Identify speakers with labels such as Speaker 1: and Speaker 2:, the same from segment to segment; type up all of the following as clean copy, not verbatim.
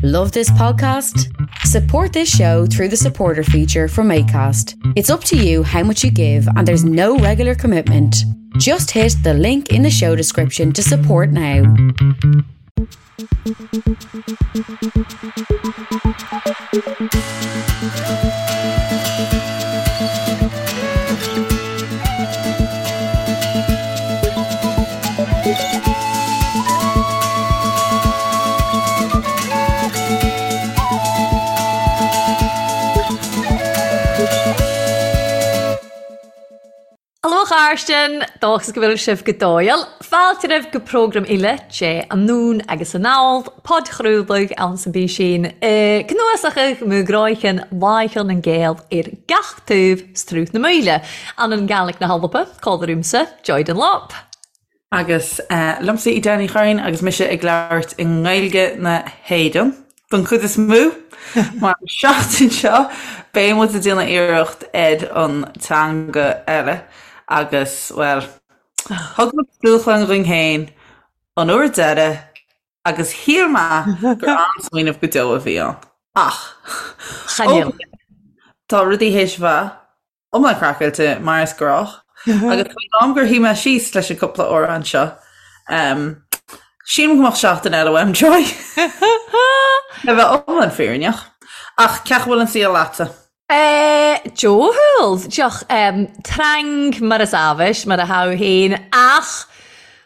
Speaker 1: Love this podcast? Support this show through the supporter feature from ACAST. It's up to you how much you give, and there's no regular commitment. Just hit the link in the show description to support now.
Speaker 2: Aló a chairdean, dóchas go bhfuil sibh go dóighiúil. Fáilte romhaibh go prógram eile de Anonn agus Anall, podchraoladh ann san bpísín i gcnuasachadh mo ghráicheann Láicheann nan Gael ar gach taobh 's Sruth na Maoile, ann an Gàidhlig na hAlba, còmhla riumsa, Joy Dunlop.
Speaker 3: Agus liomsa Edel Ní Churraoin agus mise ag labhairt i nGaeilge na hÉireann don chuid is mó, mar an seachtain seo beidh muid ag déanamh iarracht ar an teanga eile agus, bhuel, thug muid dúshlán dhúinn féin an uair deiridh agus shíl mé gur an-smaoineamh go deo a bhí ann. Ach, ó tá rudaí théis bheith iomlán craiceáilte mar is gnách agus faoin am gur shuigh mé síos leis an cúpla amhrán seo, sílim go mbeadh seachtain eile uaim, Joy. Le bheith iomlán fírinneach. Ach cén chaoi a bhfuil an saol leatsa?
Speaker 2: Dóighiúil, dioch trang mar is amhais, mar a tha féin, ach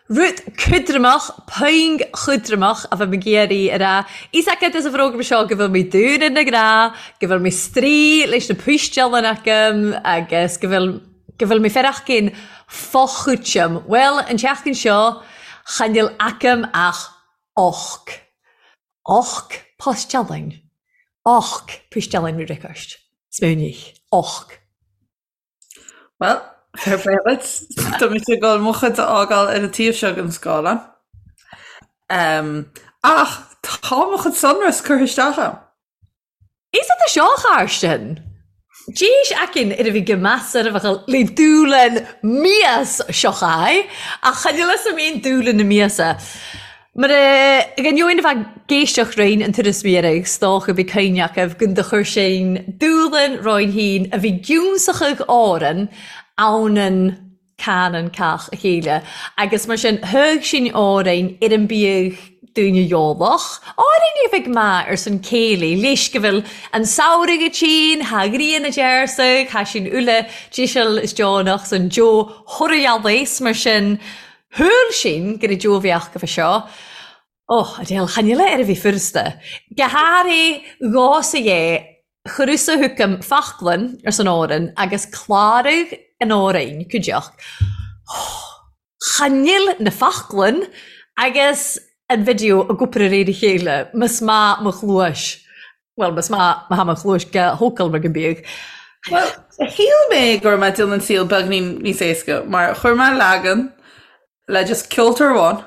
Speaker 2: Rud cudramach, puing chudramach a bheadh mé ag iarraidh a rá. Fhios agat as an bhfógra seo go bhfuil mé dúinn na gnáth, go bhfuil mé strae leis na poisteálann agam agus go bhfuil go bhfuil mé fearachcinn fochúiteam. Bhuel, an tseachtain seo, chan fhuil agam ach och. Och poisteálann. Och poisteálann request. Smaoinigh. Och.
Speaker 3: Bhuel, fair play duit. Tá mise ag dul mo chuid a fhágáil ar an taobh seo den scáileán. Ach tá mo chuid sonrasc curtha isteach agam.
Speaker 2: Is é seo a Chairsten. D'éis aicinn ar a bhí go measar a bheadh le dúlann mias seo chaith, ach chan fhuil fhios a'm aon dúlann na miasa. Mar a d'ainneoin a bheith ag éisteacht roinn an turas mhíreach 's dócha bhí cuimhne acu gun do chuir sinn dúlann roinn féin a bhí giúnsachadh Árann ann an canann cách a chéile agus mar sin thug sinn Árainn ar an biadh daoine eolach, Árainn a bheidh maith ar son céilí leis go bhfuil an samhradh ag tinn, thá ghrian a dearsadh, thá sinn uile díseal is deonach san deo thoradh mar sin Shúil sinn gur i dtreo bheadh go seo. Ó, Adele, chan fhuil ar a bhí furasta. Go háirithe dhá sa dhé, chuireadh-sa chugam faclann ar son Árann agus cláradh an Árainn, cuideachd. Ó, chan fhuil na faclann agus an video ag obair ar réir a chéile, más maith mo chluais. Bhuel, más maith má tha mo chluais go hócail mar go mbíodh.
Speaker 3: Bhuel, shíl mé go raibh mé ag déanamh an saol beagnín níos éasca mar chuir mé leagan le just ceoltóir amháin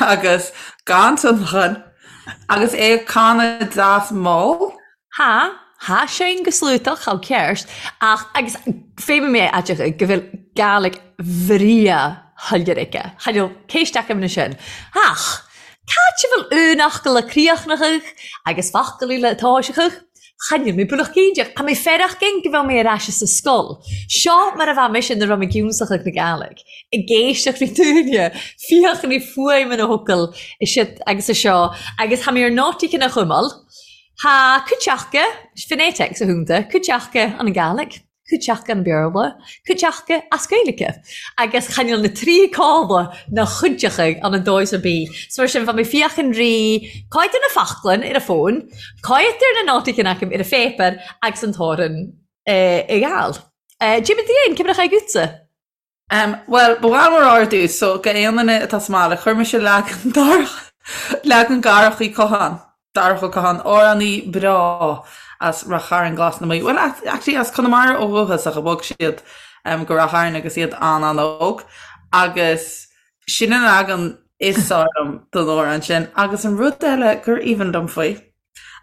Speaker 3: agus gan tionlacan agus é ag canadh deas mall.
Speaker 2: Tha, tha sin go sluatach, chomh ceart, ach agus féadfaidh mé a aiteachadh go bhfuil Gàidhlig bhreá shoiléir aici. Chan fhuil ceist agam na sin. Ach, Cad a bhfuil aon fhocal a críochnaitheadh agus focal eile a toiseachadh? Chan fhuil mé buíoch cinnteach. Tá mé fearach gin go bhfuil mé ar ais sa scoil. Seo mar a bheadh mise nuair a bheadh mé ag ionsachadh na Gàidhlig. Ag éisteacht le daoine, féach na fuaimeanna focal is agus is seo agus tá mé ar nótaí cinn a chumail. Tá cuideachta, phonetics a thúnta, cuideachta an Gàidhlig. Cuideachta an Béarla, cuideachta as Gaeilge, agus chan fhuil na trí cála ná chuideachta ann an dóigh ar bith. So mar sin, bheadh mé féachaint rí cáit ar na faclainn ar a fón, cáit ar na nótaí cinn acu ar a phéipéar agus an t-amhrán ag gabháil. Jimmy Dane, cé mar a chaith agatsa?
Speaker 3: Bhuel, ba mhaith liom a rá ar dtús, so go aon duine atá sa mbaile, chuir mise leagan Darach, leagan Dharach Uí Chatháin, Darach Ó Catháin, amhránaí breá as Rath Chairn Glas na Mí, bhuel, actually as Conamara ó dhúchas ach bhog siad go Rath Chairn agus iad an-an-óg, agus sin an leagan is fearr liom den amhrán sin. Agus an rud eile gur aoibhinn liom faoi,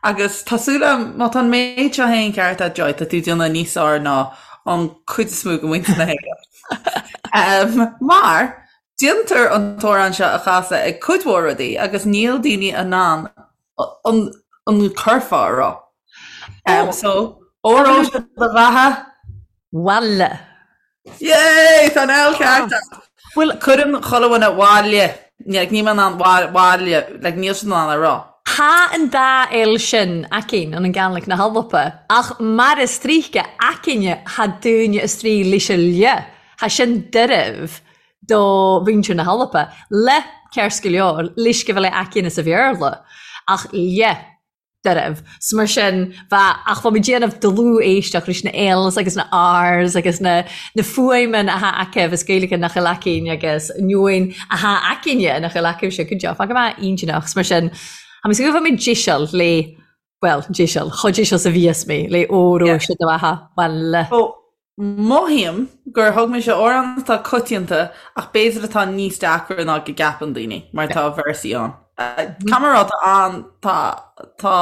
Speaker 3: Agus tá súil agam, má tá an méid seo féin ceart agat Joy, tá tú ag déanamh níos fearr ná an cuid is mó de mhuintir na hÉireann. Mar déantar an t-amhrán seo a chasadh ag cuid mhór rudaí agus níl daoine in ann An an curfá a rá. Um, so, Óró sé do bheatha?
Speaker 2: Bhaile.
Speaker 3: Yay! Tá an L ceart agat. Bhuel, cuireann chuile dhuine bhaile. Like, níl mé in ann bhaile, like, níl siad in ann a rá.
Speaker 2: Tá an dá L sin againn ann an Gàidhlig na h-Alba, ach mar is tríche againne tha daoine a-straidh leis a' lhe, tha sin doirbh do mhuintir na h-Alba, le ceart go leor, leis go bhfuil é againne sa Bhéarla, ach lhe. doirbh. 'S mar sin, bheadh, ach bheadh mé déanamh dlúth-éisteacht leis na L's agus na R's agus na, na fuaimeanna atá acu as Gaeilge nach bhfuil againn agus neoin atá againne nach bhfuil acu go deo. Fágfaidh mé intinneach. 'S mar sin, tá mé ag súil go bhfuil mé deiseal le, bhuel, deiseal, chomh deiseal 's a bhíos mé le óró sé do bheatha, bhuel.
Speaker 3: Ó, Mothaím gur thug mise amhrán atá coitianta ach b'fhéidir atá níos deacra ná go gceapann daoine mar tá véarsaí ann. Caithfidh mé a rá tá an tá tá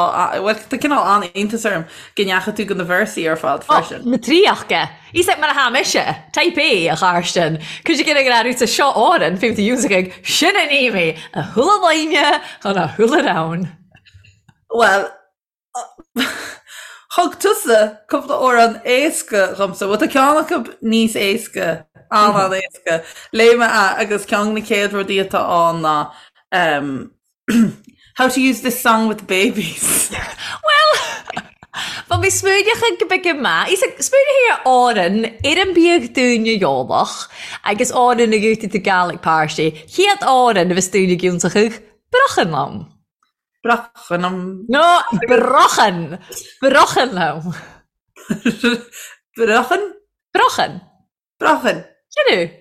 Speaker 3: bhuel tá cineál an-iontas orm go ndeachaigh tú go na véarsaí ar fad freisin.
Speaker 2: Na tríocha. Is é mar atá mise, Type A, a Chairsten. Cuid de ag rá seo Árann, fiú do Yusuf sin an mé a shúile lainne chun a shúile ann.
Speaker 3: Bhuel, Thug tusa cúpla amhrán éasca dhomsa. Bhuel, tá ceann acu níos éasca, an-an-éasca. Léigh mé é agus ceann de na chéad rudaí atá ann ná How to use this song with babies.
Speaker 2: Bhuel, bha mi smaoineachadh go beag maith. Is ag smaoineachadh ar Árann, ar an biadh dúinne eolach, agus Árann a ghiútaigh tú Gaelic Party. Chéad Árann a bheas dúinne ag ionnsachadh, Brochan liom.
Speaker 3: Brochan liom.
Speaker 2: No, brochan! Brochan liom.
Speaker 3: Brochan?
Speaker 2: Brochan.
Speaker 3: Brochan.
Speaker 2: Sin é.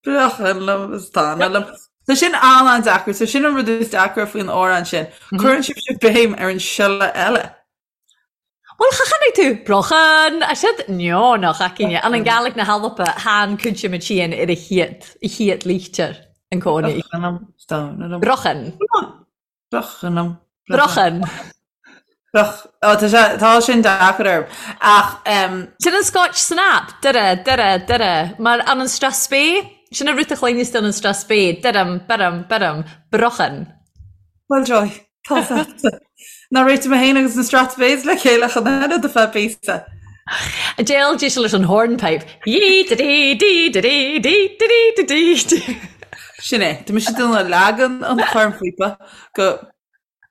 Speaker 3: Brochan liom is tana liom. Tá sin an-an-deacair, so sin an rud is deacra faoin amhrán sin. Cuireann sibhse béim ar an siolla eile.
Speaker 2: Bhuel, cha chonaic tú brochan, a siad neo nach aicine, an an Gàidhlig na h-Alba, tha an cuid ma tìonn ar a chiad, a chiad lichtir an cónaí.
Speaker 3: Brochan liom is tana liom.
Speaker 2: Brochan.
Speaker 3: Brochan liom.
Speaker 2: Brochan.
Speaker 3: Broch. Ó, tá sé, tá sin deacair orm. Ach, em.
Speaker 2: Sin an Scotch Snap, dura, dura, dura, mar an an Strathspey, sin an rud a chluineas tú an an Strathspey, duram, buram, buram, brochan.
Speaker 3: Bhuel, Joy, tá faighte. Ná réitigh mé féin agus na Strathspeys le chéile chun eile do feadh píosa.
Speaker 2: Déal dí leis an hornpipe. Yee da dee dee da dee dee da dee da dee dee.
Speaker 3: Sin é. Tá mise ag déanamh leagan an chornphíopa go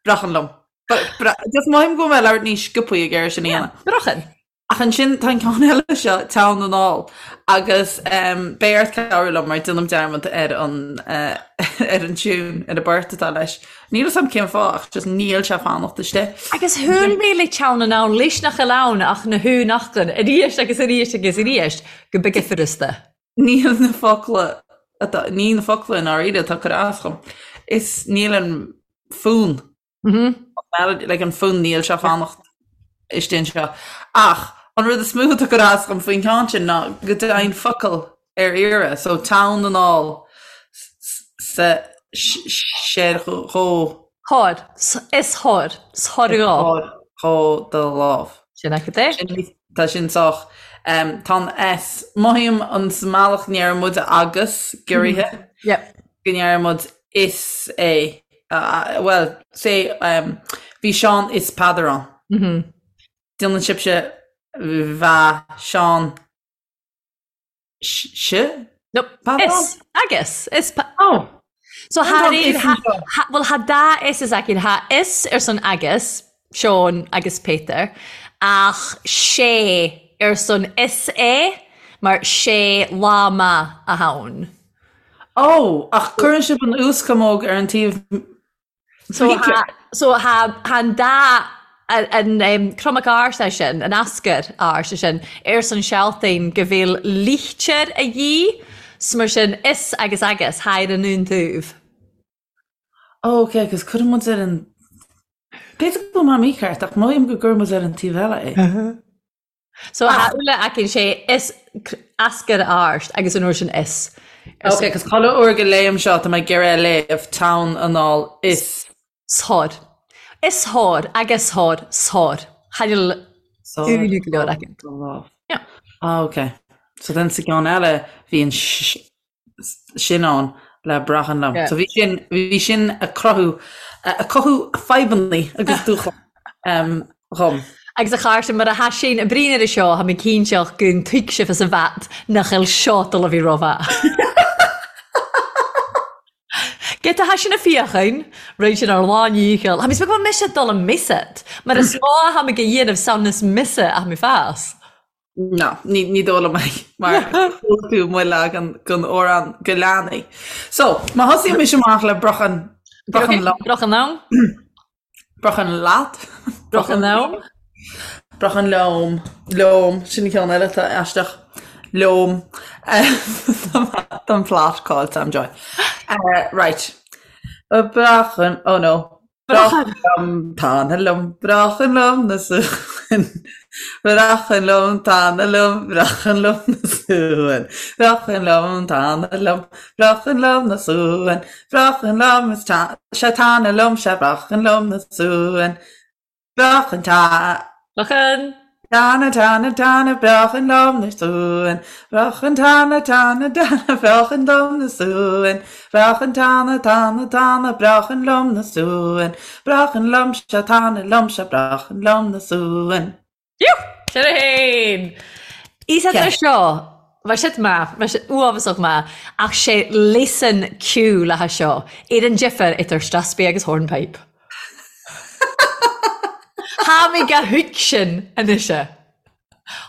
Speaker 3: brochan liom. Just mothaím go bhfuil mé ag labhairt níos sciobthaí ag iarraidh sin a dhéanamh.
Speaker 2: Brochan.
Speaker 3: Ach ansin tá an ceann eile seo, Teann Anall, agus beidh ort cabhrú liom mar déanaim dearmad ar an ar an tiún, ar an bport atá leis. Níl 'fhios a'm cén fáth ach just níl sé ag fanacht istigh.
Speaker 2: Agus shúil mé le Teann Anall leis nach bhfuil ann ach na húnachtain arís agus arís agus arís go bige furasta.
Speaker 3: Níl na focla atá, ní na focla i ndáiríre atá ag cur as dhom. Is níl an fonn. Melody, like an fonn níl sé ag fanacht istigh anseo. Ach an rud is mó atá ag cur as dhom faoin cheann sin ná go dtéann focal ar iarraidh, so teann anall sa sé dhó.
Speaker 2: Thor, is thor, 's thor dhó.
Speaker 3: Thor dhó do lámh.
Speaker 2: Sin agat é.
Speaker 3: Tá sin sách. Tá an S, mothaím an sa mbealach ndeireann muid agus, giorraithe, go ndeireann muid is é. Bhuel, say, bhí Seán is Peadar ann. Déanann sibhse bha Seán 's?
Speaker 2: No, is, agus, is, oh. So tha bhuel tha dà is is againn, tha is air son agus, Seán agus Peter, ach sé ar son is é, mar sé lá maith a tha ann.
Speaker 3: Ó, ach cuireann sibh an uaschamóg ar an taobh
Speaker 2: So tha, so tha, tha an dá, an, an cromac ársa sin, an ascar ársa sin, ar son sealtainn go bhfuil lichtir a dhíth, 's mar sin is agus agus, tha ar an aon taobh.
Speaker 3: Ó, ok, agus cuireann muid ar an, b'fhéidir go bhfuil mé mícheart, ach mothaím go gcuireann muid ar an taobh eile é.
Speaker 2: So tha uile againn sé is ascar àrst agus an uair sin is.
Speaker 3: Ok, cos chuile uair go léim seo tá mé ag iarraidh a léamh teann anall is.
Speaker 2: Sár. Is thor agus thor sár. Cha fheil uile go leor againn.
Speaker 3: Yeah. Ah, ok. So then sa gceann eile bhí an sin ann. le brochan liom. So bhí sin, bhí sin ag cruthú, ag cothú fadhbanna agus dúshlán dhom.
Speaker 2: Agus a Chairste, mar a tha sinn a' bruidhinn air seo, tha mi cinnteach gun tuig sibh as a bhat nach eil seo dol a bhith ro-mhath. Ge tha sinn a feuchainn, rinn sinn àr lán-dhícheall. Tha mi 's beag mise dol am miosad, mar as mò a tha mi ag dhéanamh samhnas miosa a tha mi fas.
Speaker 3: Ná, ní, ní dóigh liom é, mar chuala tú mo leagan den amhrán do leanaí. So, má thosaíonn mise amach le brochan, brochan liom.
Speaker 2: Brochan liom.
Speaker 3: Brochan leat.
Speaker 2: Brochan liom.
Speaker 3: Brochan liom. Liom. Sin an ceann eile atá aisteach. Liom. Tá an plot caillte a'm Joy. Right. Brochan, oh no. Brochan liom, tana liom, brochan liom na suan. Brochan liom, tana liom, brochan liom na suan. Brochan liom, tana liom, brochan liom na suan. Brochan liom is ta, sea tana liom, sea brochan liom na suan. Brochan ta.
Speaker 2: Brochan.
Speaker 3: Tana tana tana brochan liom na suan Brochan tana tana tana brochan liom na suan Brochan tana tana tana brochan liom na suan Brochan liom sea tana liom sea brochan liom na suan.
Speaker 2: Sin é fhéin! Is é seo, bha sid math, bha sid uabhasach math, ach sé leasan ceòil a tha seo, air an difir idir strathspey agus hornpipe. Tha mi gu thuigsinn a-nis.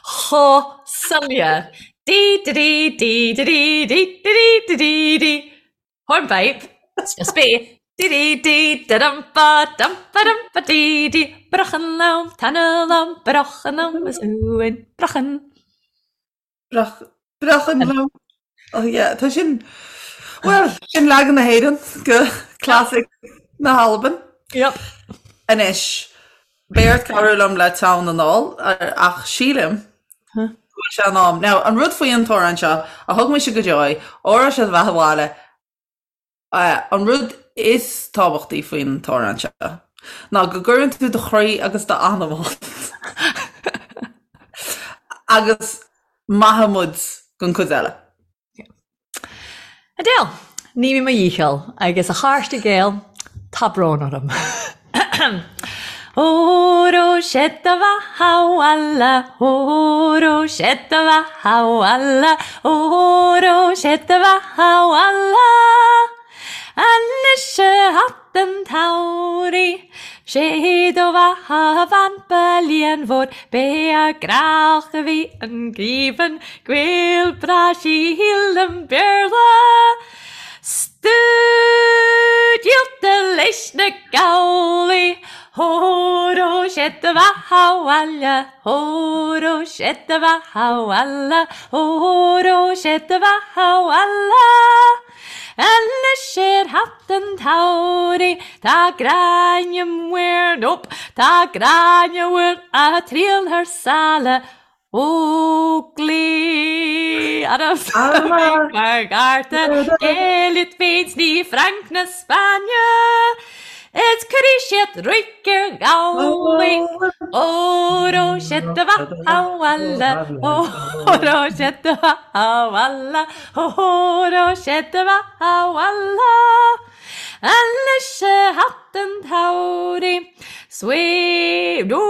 Speaker 2: Cho soiléir. Dee dee dee dee dee dee dee dee dee dee dee. Hornpipe. Strathspey. Dee dee dee da dum ba dum ba dum ba dee dee. Brochan liom, tana liom, brochan liom is uain. Brochan.
Speaker 3: Brochan liom. Oh yeah, tá sin, bhuel, sin leagan na hÉireann de classic na hAlban.
Speaker 2: Yep.
Speaker 3: Anois, beidh ort cabhrú liom le tonn anall, ach sílim go bhfuil sé in am. Now, an rud faoi an t-amhrán seo, a thug mise go Joy, Óró Sé do Bheatha 'Bhaile, An rud is tábhachtaí faoin t-amhrán seo ná go gcuireann tú do chroí agus d'anam ann agus maithfidh muid don chuid eile.
Speaker 2: Adele, Ní mé mo dhícheall agus a chairde Gael, tá brón orm. Óró sé do bheatha 'bhaile, óró sé do bheatha 'bhaile, óró sé do bheatha 'bhaile. Anois a hat an tsamhraidh, sé do bheatha a bhean ba líonmhór, b'é a grách a bhí an geimheann, gaol breá sílim Béarla. 'S tú díolta leis na gabhlaí, Óró sé do bheatha 'bhaile, óró sé do bheatha 'bhaile, óró sé do bheatha 'bhaile. Anois ar theacht an tsamhraidh, tá Gráinne Mhaol, nope, tá Gráinne Mhaol a' triall thar sáile, Óglaigh mar gharta Gael féin 's ní Frainc na Spáinne Is cuirfidh siad ruaig ar ghabhlaí Óró sé do bheatha 'bhaile Óró sé do bheatha 'bhaile Óró sé do bheatha 'bhaile Anois a theacht an tsamhraidh Swae nó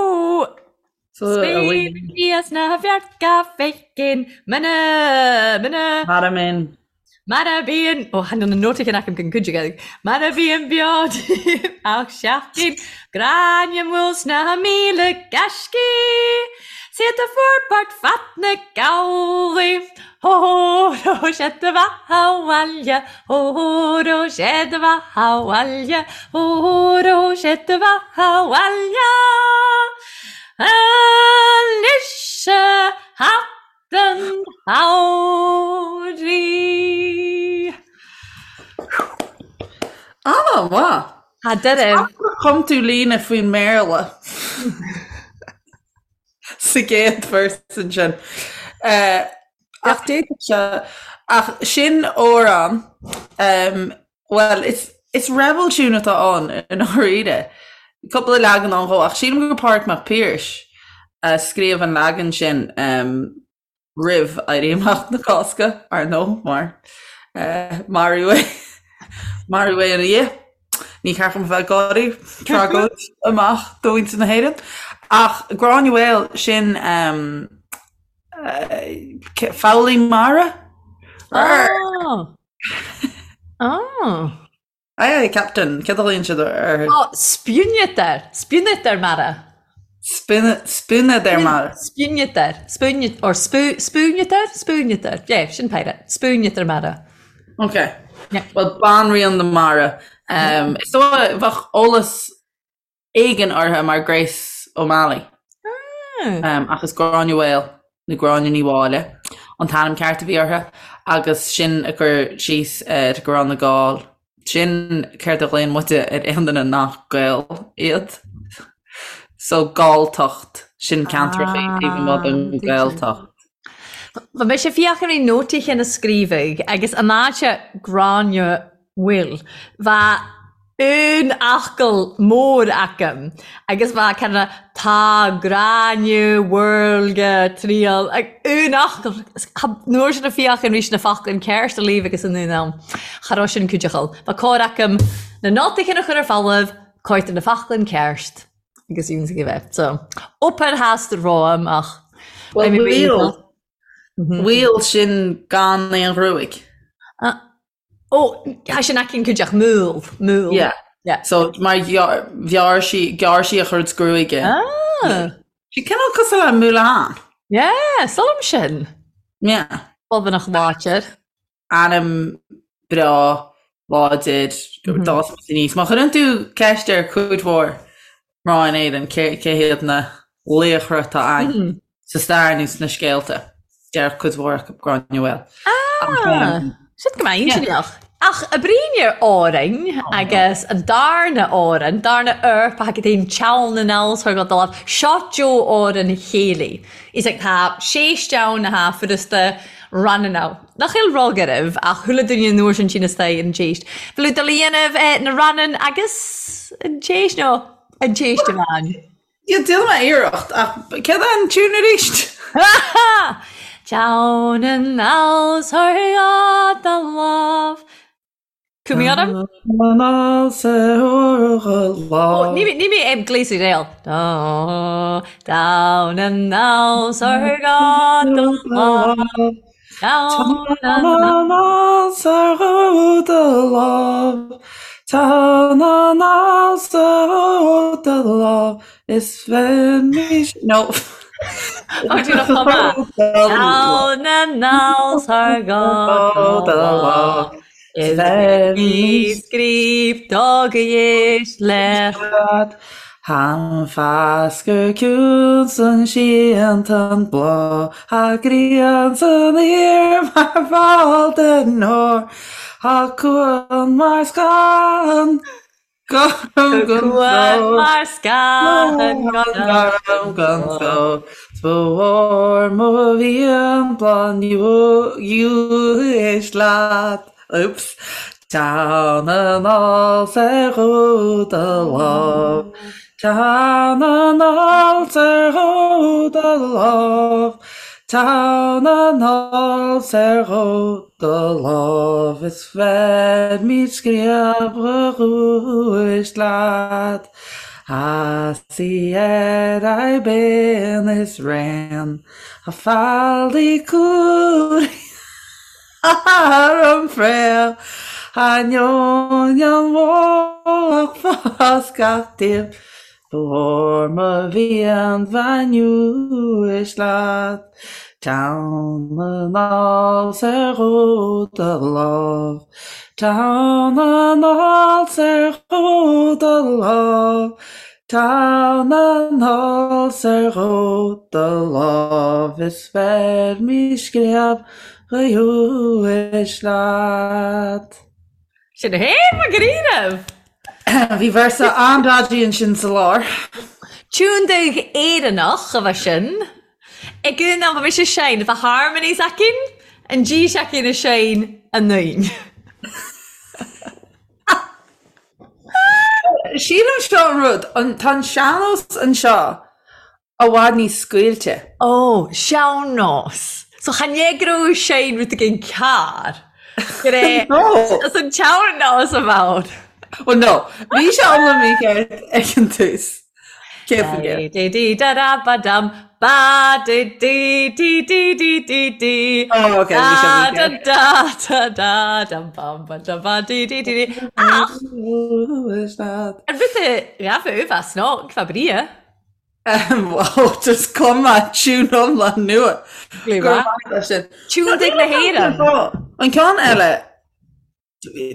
Speaker 2: Smaoiníos na bhfearca féicin, mana, mana.
Speaker 3: Mar a mbíonn.
Speaker 2: Mar a bhíonn, ó chan eil na nótaí cinn agam don chuid Gaeilge, mar a bhíonn beo díom ach seachtain, Gráinne Mhaol sna 1000 gaiscí, 's iad a forbairt fad na gabhlaí, Óró sé do bheatha 'bhaile, óró sé do bheatha 'bhaile, óró sé do bheatha 'bhaile. Anois a theacht an tsamhraidh.
Speaker 3: An-mhaith.
Speaker 2: Tá deireadh.
Speaker 3: Chum tú líne faoin mBéarla. sa gcéad verse ansin. Ach d'fhéadfadh sé, ach sin amhrán, bhuel, is, is rebel tune atá ann i ndáiríre. Cúpla leagan ann dhó, ach sílim gur Pádraig Mac Piarais a scríobh an leagan sin roimh Éirí Amach na Cásca, ar ndóigh, mar maraíodh é. Maraíodh é ina dhiaidh. Ní ceart dom a bheith ag gáirí, tragóid amach do mhuintir na hÉireann. Ach Gráinne Mhaol, sin foghlaí mara?
Speaker 2: Oh! Oh!
Speaker 3: Aye aye Captain, céard a ghlaonn siad
Speaker 2: orthu? Oh, spúnadar, spúnadar mara.
Speaker 3: Spúnadar mara.
Speaker 2: Spúnadar, spún, or spú, spúnadar, spúnadar, yeah, sin pirate, spúnadar mara.
Speaker 3: Ok. Yeah. Well, banríon na mara. Um, is dóigh bheadh eolas éigin uirthi mar Grace O'Malley. Ah. Ach is Gráinne Mhaol nó Gráinne Ní Mháille an t-ainm ceart a bhí uirthi agus sin a cur síos ar go raibh na Gaill. Sin céard a ghlaonn muide ar aon duine nach Gael iad. So Galltacht, sin ceantracha taobh amuigh den Ghaeltacht.
Speaker 2: Bha mise ag fiachainn ri nótaí chinn a scríobhadh agus an áit Gráinne Mhaol bha aon fhocal mór agam agus bha kind of tá Gráinne Mhaol triall ag aon fhocal nuair sin a fiachainn rís na foclainn ceart a léamh agus an aon am cha raibh sin cuideachal. Bha cóir agam na nótaí chinn a chur ar folamh, cóir na foclainn ceart. agus ionsaí a bheith. So, obair theas romham ach
Speaker 3: Well, bhfuil bhfuil sin gan aon ghruaig.
Speaker 2: Ó, tá sin aici cuideach múl, múl.
Speaker 3: Yeah. Yeah. So mar ghearr sí ghearr sí a chuid gruaige.
Speaker 2: Ah.
Speaker 3: Sí cineál cosúil le Mulan.
Speaker 2: Yeah, solam sin.
Speaker 3: Yeah.
Speaker 2: Bobbanach láidir.
Speaker 3: Ainm breá, láidir, d'fhás muid aníos. Má chuireann tú ceist ar cuid mhór mná in Éirinn cé cé hiad na laochra atá againn sa stair nó sna scéalta, déarfadh cuid mhór acu Gráinne Mhaol.
Speaker 2: Ah, sin go maith inseach. Ach a brín ar Árainn agus an darna Árainn, darna Eorpach agus an teann na n-alls go dul seo Joe Árainn chéilí. Is ag tá séis ann atá furasta ranna Nach eil rug oraibh ach chuile duine an uair sin tinn istoigh ar an tséist. Bhfuil tú dul a dhéanamh na rannan agus an tséist nó an tséist amháin?
Speaker 3: Yeah, déanfaidh mé iarracht ach céard é an tiún arís?
Speaker 2: Down and out thar the love. Cumhaidh orm? Ó, ní ní mé ag gléasadh réal. Down and out thar the love. Down and
Speaker 3: Is fearr No.
Speaker 2: Down and out thar the love. Is bhí scríobh dá go dhéis le.
Speaker 3: Than fasgur ciúin san síon tan bláth Tha grian san aer mar bhall den ór Tha cuan mar scáth gorm gan
Speaker 2: Cuan mar scáth
Speaker 3: gorm gan stró 'S ba mhór mo mhian bláth éist leat. Oops. Teann anall 's ar dhó do lámh. Teann anall 's ar dhó do lámh. Teann anall 's ar dhó do lámh. Is bheirmid scríob dhúis leat. As í ar aghaidh binn is raon. A fallaí cúil. Ar an bhfraoch, ainneoin an mhullach fás gach taobh, ba mhór mo mhian bheith uaisle leat. Teann anall 's ar dhó do lámh, teann anall 's ar dhó do lámh, Teann anall 's ar dhó do lámh is bheirmid scríob ghaois leat.
Speaker 2: Sin é féin mar go raibh.
Speaker 3: Bhí véarsa an-dodgy ansin sa lár.
Speaker 2: Tiún dubh Éireannach a bheith sin. Ag an am a bhí sé sein, bheadh harmonies aicinn, an dís aicinn a sein a naoin.
Speaker 3: Sílim seo an rud, tá an sean-nós anseo i bhfad níos scaoilte.
Speaker 2: Ó, sean-nós. So chan é go raibh sein rud éigin cearr. Go
Speaker 3: No!
Speaker 2: As an teann nó as an bhfonn.
Speaker 3: Well no, bhí sé iomlán mícheart ag an tús. 100%.
Speaker 2: Dí dí da da ba dum ba dí dí dí dí dí dí dí
Speaker 3: Oh, okay, bhí sé
Speaker 2: da da
Speaker 3: mícheart.
Speaker 2: da da da dum bum ba da ba dí dí dí dí Ach an rud a ghabh as ná fa bria.
Speaker 3: Wow, just cuma tune iomlán nua.
Speaker 2: Go
Speaker 3: raibh maith agat as sin.
Speaker 2: Tune dig na hÉireann.
Speaker 3: An ceann eile,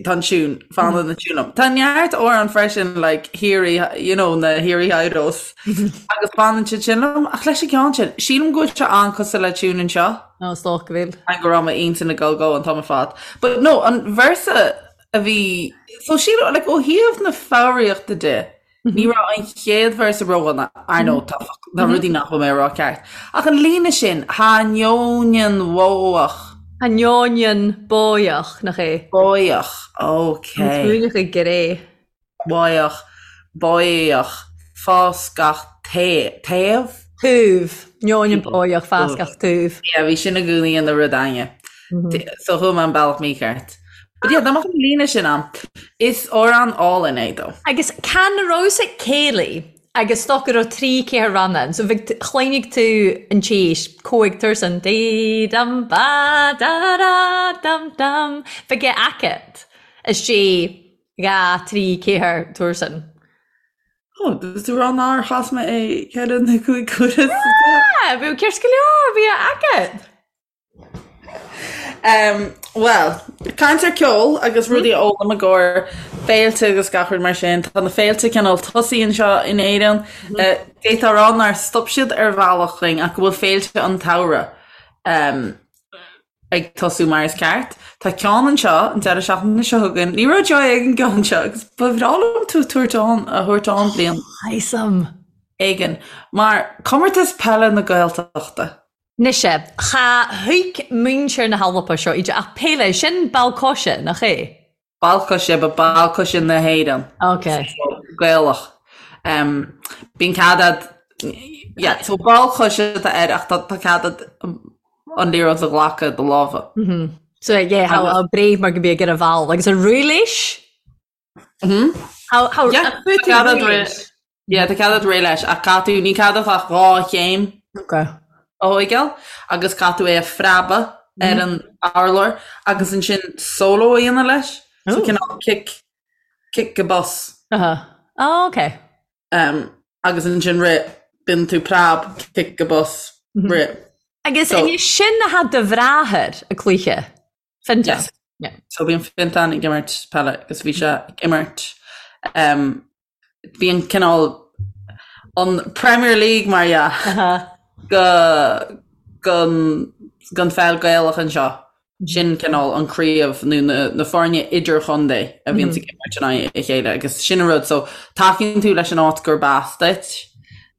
Speaker 3: tá an tune, fanann an tune liom. Tá neart amhrán freisin, like, Hiri, you know, na Hiri Idols, agus fanann siad sin liom, ach leis an gceann sin, sílim go bhfuil sé an-cosúil le tune anseo.
Speaker 2: Ó, is dócha go bhfuil.
Speaker 3: An go raibh m'intinn ag dul go an t-am ar fad. But no, an véarsa a bhí, so sílim, like, ó thaobh na foghraíochta de, Ní raibh an chéad véarsa ródhona, ar ndóigh, tá tá rudaí nach bhfuil mé a rá ceart. Ach an líne sin, Tha neoinean bhódhach.
Speaker 2: Tha neoinean bóidheach, nach é?
Speaker 3: Bóidheach, ok.
Speaker 2: An t-uaigneach i gcré.
Speaker 3: Bóidheach, bóidheach, fás gach taobh?
Speaker 2: Taobh. Neoinean bóidheach, fás gach taobh.
Speaker 3: Yeah, bhí sin i gcónaí ina rud againne. So chuaigh mé an bealach mícheart. But yeah, dá mbeadh an líne sin ann. Is amhrán álainn é though.
Speaker 2: Agus can rabhas ag céilí agus stoc go raibh trí ceathair ranna ann, so bheadh chloinnigh tú an tséis, cóig tuirsean, dí dum ba da da dum dum, bheadh é agat is sé dhá trí ceathair tuirsean.
Speaker 3: Ó, tú rá nár chas mé é ceithre nó cúig huaire sa
Speaker 2: deireadh. Ah, bhí ceart go leor, bhí é agat.
Speaker 3: Um, Bhuel, caint ar ceol agus rudaí a fhoghlaim i gcomhair féilte agus gach rud mar sin. Tá na féilte cineál tosaithe anseo in Éirinn. Eh, D'fhéadfá a rá nár stop siad ar bhealach chugainn ach go bhfuil féilte an tsamhraidh um, ag tosú mar is ceart. Tá ceann anseo an deireadh seachtaine seo chugainn. Ní raibh Joy ag an gceann seo agus ba bhreá liom tú a tabhairt ann a thabhairt ann bliain
Speaker 2: Awesome.
Speaker 3: éigin mar comórtas peile na Gaeltachta.
Speaker 2: Mise, Cha thuig muintir na hAlba seo iad ach peile, sin ball coise, nach é?
Speaker 3: Ball coise, but ball coise na hÉireann.
Speaker 2: Ok.
Speaker 3: So, Gaelach. Um, bíonn cead a'd, yeah, so ball coise atá air ach tá, tá cead a'd an liathróid a ghlacadh i do lámha.
Speaker 2: Mm-hmm. So, yeah, how, how brave mar go bí ag ar a bhall agus a rúiléis?
Speaker 3: Mm-hmm.
Speaker 2: How, how,
Speaker 3: Yeah, tá cead a'd rith. Yeah, tá cead a'd rith leis ach caithfidh tú, ní cead a'd ach dhá chéim
Speaker 2: Ok.
Speaker 3: a thóigeáil agus caithfidh tú é a phreabadh ar an urlár agus ansin solo a dhéanamh leis. So
Speaker 2: Ooh.
Speaker 3: cineál cic, cic go bos.
Speaker 2: Uh-huh. Oh, ok.
Speaker 3: Um, agus ansin rith, bíonn tú preab, cic go bos, rith.
Speaker 2: Agus
Speaker 3: So-
Speaker 2: so, sin a had do bhráthair a cluiche. Fintan.
Speaker 3: Yes.
Speaker 2: Yeah.
Speaker 3: So bíonn Fintan ag imirt peile agus bhí sé ag imirt um, bíonn cineál an Premier League mar dhea
Speaker 2: Uh-huh.
Speaker 3: go gon gon pheil Gaelach anseo. Sin cineál an craobh nó na, na foirne idirchontae a bhíonn ag imirt in aghaidh a chéile agus sin an rud so tacaíonn tú leis an áit gurb as duit.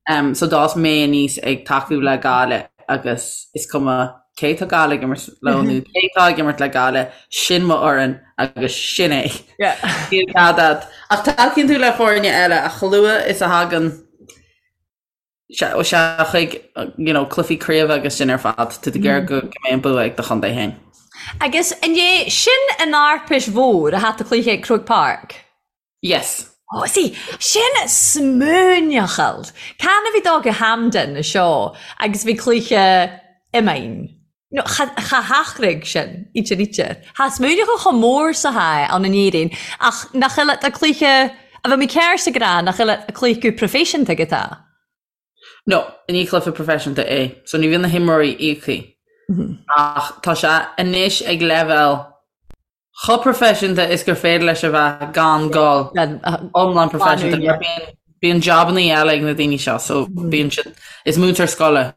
Speaker 3: Um, so d'fhás mé aníos ag tacú le Gaillimh agus is cuma cé tá Gaillimh ag imirt leo nó cé tá ag imirt le Gaillimh, sin mo fhoireann agus sin é. Níl cead a'd. Ach tacaíonn tú le foirne eile ach chomh luath is a thagann sé sé chuig you know, cluichí craoibhe agus sin ar fad, tá tú ag iarraidh go go mbeidh an bua ag do chontae féin.
Speaker 2: Agus an é sin an Arpais Mhór a hat a cluiche ag Croke Park?
Speaker 3: Yes.
Speaker 2: Oh, see, sin smuaineachal. Can a bhí dó go Hampden seo agus bhí cluiche iomáin. No, cha, cha hachraigh sin, íte ríte. Tha smuaineachal chomh mór sa tha ann in Éirinn, ach nach eile a cluiche, a bheith mé cearr sa gra, nach eile a cluiche go professionta go tá.
Speaker 3: No, ní cluiche proifisiúnta é, so ní bhíonn na himreoirí íoctha. Ach tá sé anois ag leibhéal chomh proifisiúnta is gur féidir leis a bheith gan dul iomlán proifisiúnta. Mar bíonn, bíonn jabannaí eile ag na daoine seo, so bíonn siad, is múinteoir scoile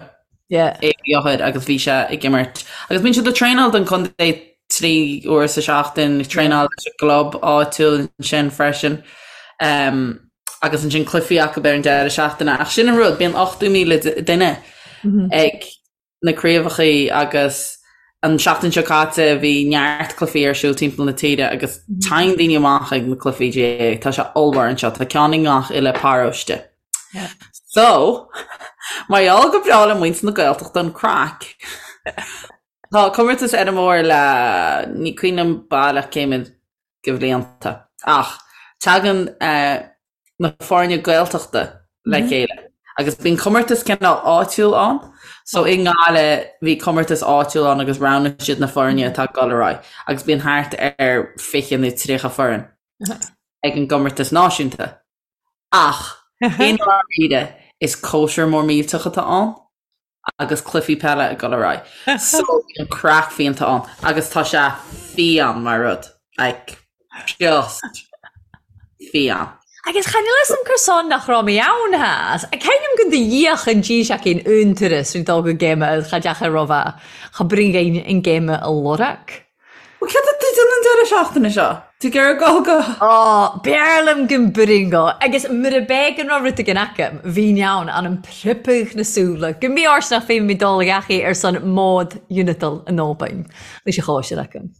Speaker 2: Yeah.
Speaker 3: é Eochair agus bhí sé ag imirt. Agus bíonn siad ag traenáil don chontae trí uair sa seachtain, ag traenáil leis an gclub áitiúil ansin freisin. Um, agus ansin cluichí acu ar an deireadh seachtaine. Ach sin an rud, bíonn 80,000 duine ag na craobhachaí agus an seachtain seo caite bhí neart cluichí ar siúl timpeall na tíre agus tagann daoine amach ag na cluichí GAA. Tá sé ollmhór anseo, tá ceann i ngach uile paróiste. So, mar gheall go breá le muintir na Gaeltachta an craic. Tá comórtas eile mór le ní cuimhin liom baileach cé mhéad de bhlianta ach tagann na foirne Gaeltachta le chéile agus bíonn comórtas cineál áitiúil ann. So i nGaillimh bhí comórtas áitiúil ann agus roghnaigh siad na foirne atá ag dul ar aghaidh agus bíonn thart ar 20 nó 30 foireann ag an gcomórtas náisiúnta. Ach i ndáiríre is cóisir mór millteach atá ann. agus cluichí peile ag dul ar aghaidh. So bíonn craic fiánta ann agus tá sé fiáin mar rud. Like, just fiáin.
Speaker 2: Agus chan fhios a'm cur son nach raibh mé ann theas. Ceinim go do dhíoch an dís aicinn un turas rí dul go géime cha deachair raibh a cha bring an géime a lorg.
Speaker 3: Bhuel, céard atá tú ag déanamh an deireadh seachtaine seo? Tú ag iarraidh dul go.
Speaker 2: Ó, b'fhearr liom go mbringo. Agus mura b'é go raibh rud éigin agam, bhínn ann, anam pripeadh na súile, go mbí ort nach bhféadfainn dul ag eachaí ar son mód Unital in Albain. Leis an chóisir agam.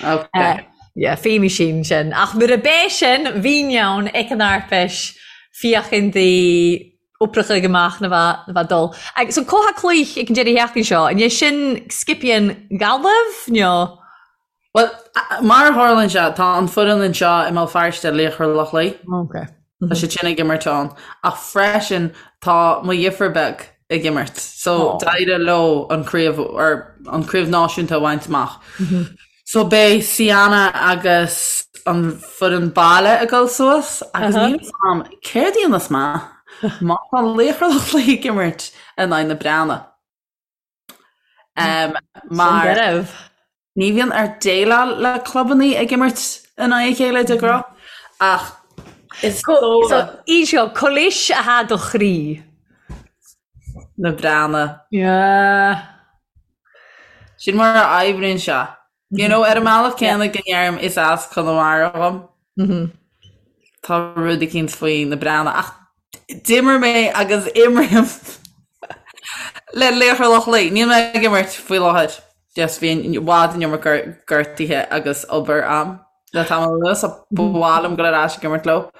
Speaker 3: Ok.
Speaker 2: Yeah, feidhmí sin sin. Ach mura b'é sin, bhínn ann ag an Arpais, féachaint di oibreacha ag amach na bheith na bheith dul. Agus so comhtha cloích ag an deireadh sheachtain seo, an é sin Scipion Gaillimh nó?
Speaker 3: Bhuel, mar a tharlaíonn sé, tá an foireann anseo i mBéal Feirste, Laochra Loch Lao.
Speaker 2: Ok.
Speaker 3: Tá siad sin ag imirt ann. Ach freisin tá mo dheirfiúr beag ag imirt. So d'éirigh leo an craobh or an craobh náisiúnta a bhaint amach. So beidh Sienna agus an foireann baile ag dul suas agus níl fhios a'm céard a dhéanfas mé má tá Laochra Loch Lao ag imirt in aghaidh na Breathnaigh. Um, mar ní bhíonn ort déileáil le clubannaí ag imirt in aghaidh a chéile de ghnáth ach
Speaker 2: is dóigh. So, í seo, colis atá do chroí.
Speaker 3: Na Breathnaigh.
Speaker 2: Yeah.
Speaker 3: Sin mar a oibríonn sé. You know, ar an mbealach céanna go ndeirim is as Conamara dhom. Tá rud eicínt faoi na Breathnaigh ach d'imir mé agus imrím le Laochra Loch Lao. Níl mé ag imirt faoi láthair. Just bhí i bhfad an iomarca gortuithe agus obair a'm le tamall anuas so ba mhaith liom dul ar ais ag imirt leo.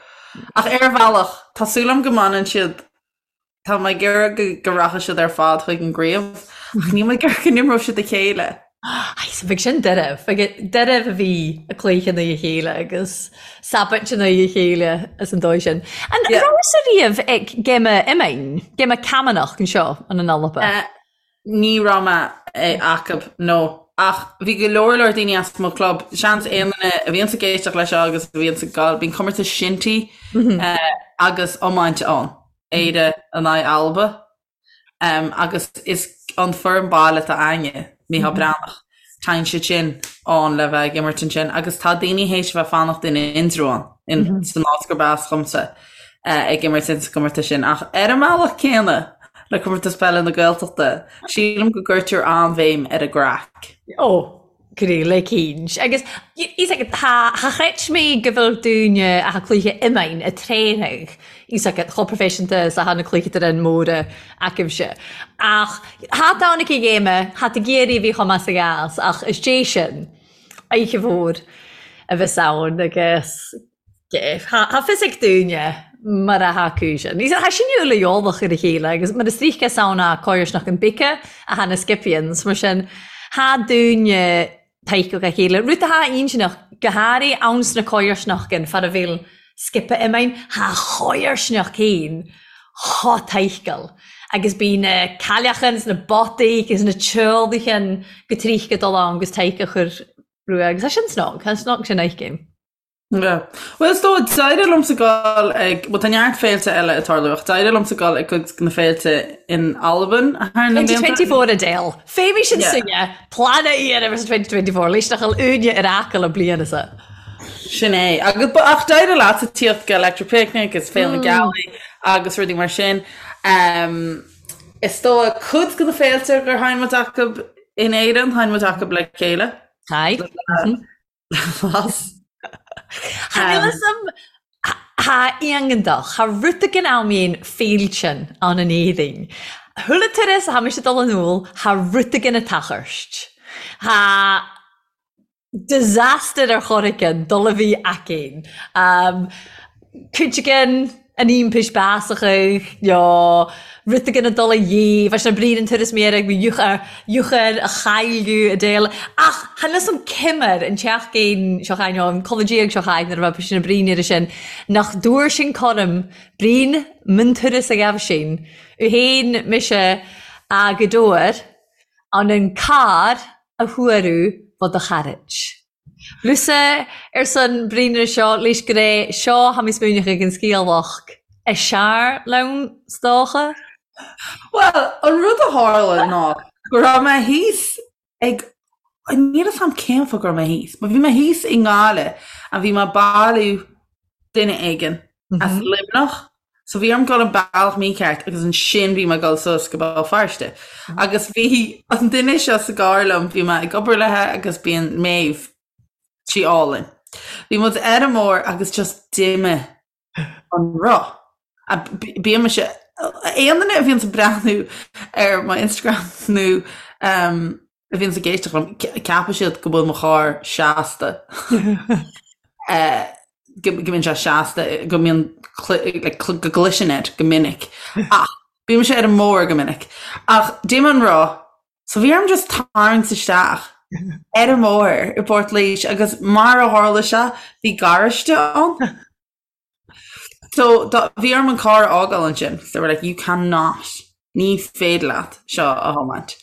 Speaker 3: Ach ar bhealach, tá súil agam go mbaineann siad Tá mé ag iarraidh go rachaidh siad ar fad chuig an gcraobh, ach níl mé ag iarraidh go n-imreodh siad a chéile.
Speaker 2: Ai, so bheadh sin deireadh. Bheadh deireadh a bhí ag cluiche in aghaidh a chéile agus sabhat in aghaidh a chéile as an dóigh sin. An rabhas-sa riamh ag géime iomáin, géime camanach anseo in an Alba?
Speaker 3: Ní raibh mé acub, no. Ach bhí go leor leor daoine as mo chlub, seans aon duine a bhíonns ag éisteacht leis seo agus a bhíonns ag gabháil, bíonn comórtas shinty agus iomáint ann, Éire in aghaidh Alba. Agus is an foireann baile atá a'inne, Mícheál Breathnach, téann siad sin ann le bheith ag imirt ansin agus tá daoine théis a bheith fanacht in Indreabhán, in san áit gurb as dhomsa, ag imirt ins an gcomórtas sin. Ach ar an mbealach céanna, Le Comórtas Peile na Gaeltachta, sílim go gcuirtear an-bhéim ar an gcraic.
Speaker 2: Ó, go le cinnt. Agus is ag tá cha chreid mé go bhfuil dúine a cluiche iomáin a tréirigh is ag chomh proifisiúnta is atá na cluiche de an móra agaibhse. Ach thá ann aici ghéime, thá ag iarraidh a bhí chomh maith sa gheas ach is dé sin oíche mhór a bheas ann agus Thá fios ag dúine mar a thá cúis. Ní thá sin uile eolach ar a chéile agus mar is ríce is ann a coirsneach an bice a thá na Scipions mar sin thá dúine taiceach a chéile. Rud athá intinneach go háirithe ann sna coirsneachgan far a bhfuil scipe iomainn thá choirsneach féin chomh taiceal agus bí na cailleachan is na botaí agus na teolaichan go tríce dul ann agus taice a chur rua agus tá sin snog, tá snog sin aici.
Speaker 3: Yeah. Bhuel, is dóigh, d'éirigh liomsa dul ag, bhuel, tá neart féilte eile ag tarlú, ach d'éirigh liomsa dul ag cuid de na féilte in Albain
Speaker 2: thar na blianta. 2024 Adele. Féimidh sin Yeah. sinne, plean a iarraidh versus 2024, leis nach bhfuil úine ar acaill an bliain is ea.
Speaker 3: Sin é. Agus, ba, ach d'éirigh leatsa tíocht go Electric Picnic is Féile na Gealaí agus rudaí mar sin. Um, is dóigh, cuid de na féilte gur sheinn muid acu in Éirinn, sheinn muid acu le chéile.
Speaker 2: Hi.
Speaker 3: Las.
Speaker 2: Tha níl 'fhios a'm tha iontach, tha rud éigin ann mín féiltean ann in Éirinn. Chuile turas a tha mise ag dul anall, tha rud éigin ag tachairt. Tha disaster ar chor éigin dul a bhí againn. Cuid againn. An iompais beasachadh nó rud éigin ag dul a dhíobh, leis na bríd an turas méire ag eochair a chailleadh a déal. Ach chan fhios a'm cimear an tseachtain seo chaith nó an culaith diaidh seo chaith nuair a bheadh sin na brín air sin nach dtabhair sin coram brín min turas a ghabh sin u fhéin mise a go dtabhair an an carr a thuaradh fá do chairt. Lusa ar son bríne seo leis go raibh seo tha mi smaoineachadh ag an sgialach a sear leann 's dòcha.
Speaker 3: Bhuel, an rud a tharla ná go raibh mé thíos ag, níl 'fhios a'm cén fáth go raibh mé thíos, but bhí mé thíos i nGaillimh and bhí mé ag bailiú duine éigin as Luimneach so bhí orm dul an bealach mícheart agus ansin bhí mé ag dul suas go Béal Feirste. Agus bhí an duine seo sa gcarr liom, bhí mé ag obair léithe agus bíonn Maeve, sí álainn. Bhí muid ar an mbóthar agus just d'imigh an roth. Bíonn mise, aon duine a bhíonns ag breathnú ar mo Instagram nó a bhíonns ag éisteacht liom, ceapfaidh siad go bhfuil mo charr seasta. Go mbíonn sé seasta, go mbíonn, go gcliseann air go minic. Ach bíonn mise ar an mbóthar go minic. Ach d'imigh an roth, so bhí orm just tarraingt isteach ar an mbóthar i bPort Laoise agus mar a tharla sé, bhí garáiste ann. So bhí orm an carr a fhágáil ansin. They were like, you cannot, ní féidir leat seo a thiomáint.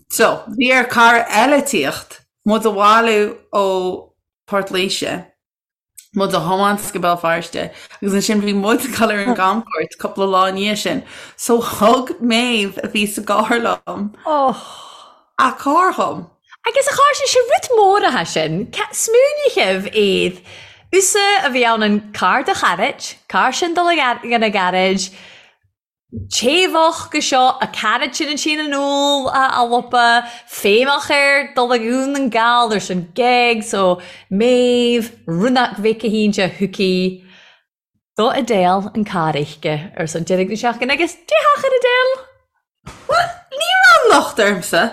Speaker 3: So bhí ar cara eile tíocht, muid a bhailiú ó Port Laoise, muid a thiomáint go Béal Feirste agus ansin bhí muid ag dul ar an gcamchuairt cúpla lá i ndiaidh sin. So thug Maeve a bhí sa gcarr liom a carr dhom.
Speaker 2: Agus a chairde, sé rud mór atá sin. Smaoinigheamh iad. Usa a bhí ann an carr do chairt, carr sin dul ag an gairid, téamhach go seo, a cairt sin an sín an úll a lopa, féimheach air dul ag Dhún na nGall ar son gig, so Méabh, Rúnach Mhic a hÍnse, Hooky. Do Adele an carr uisce ar son deireadh na seachtaine agus déarfadh ar Adele!
Speaker 3: Bhuel, ní raibh an locht ormsa.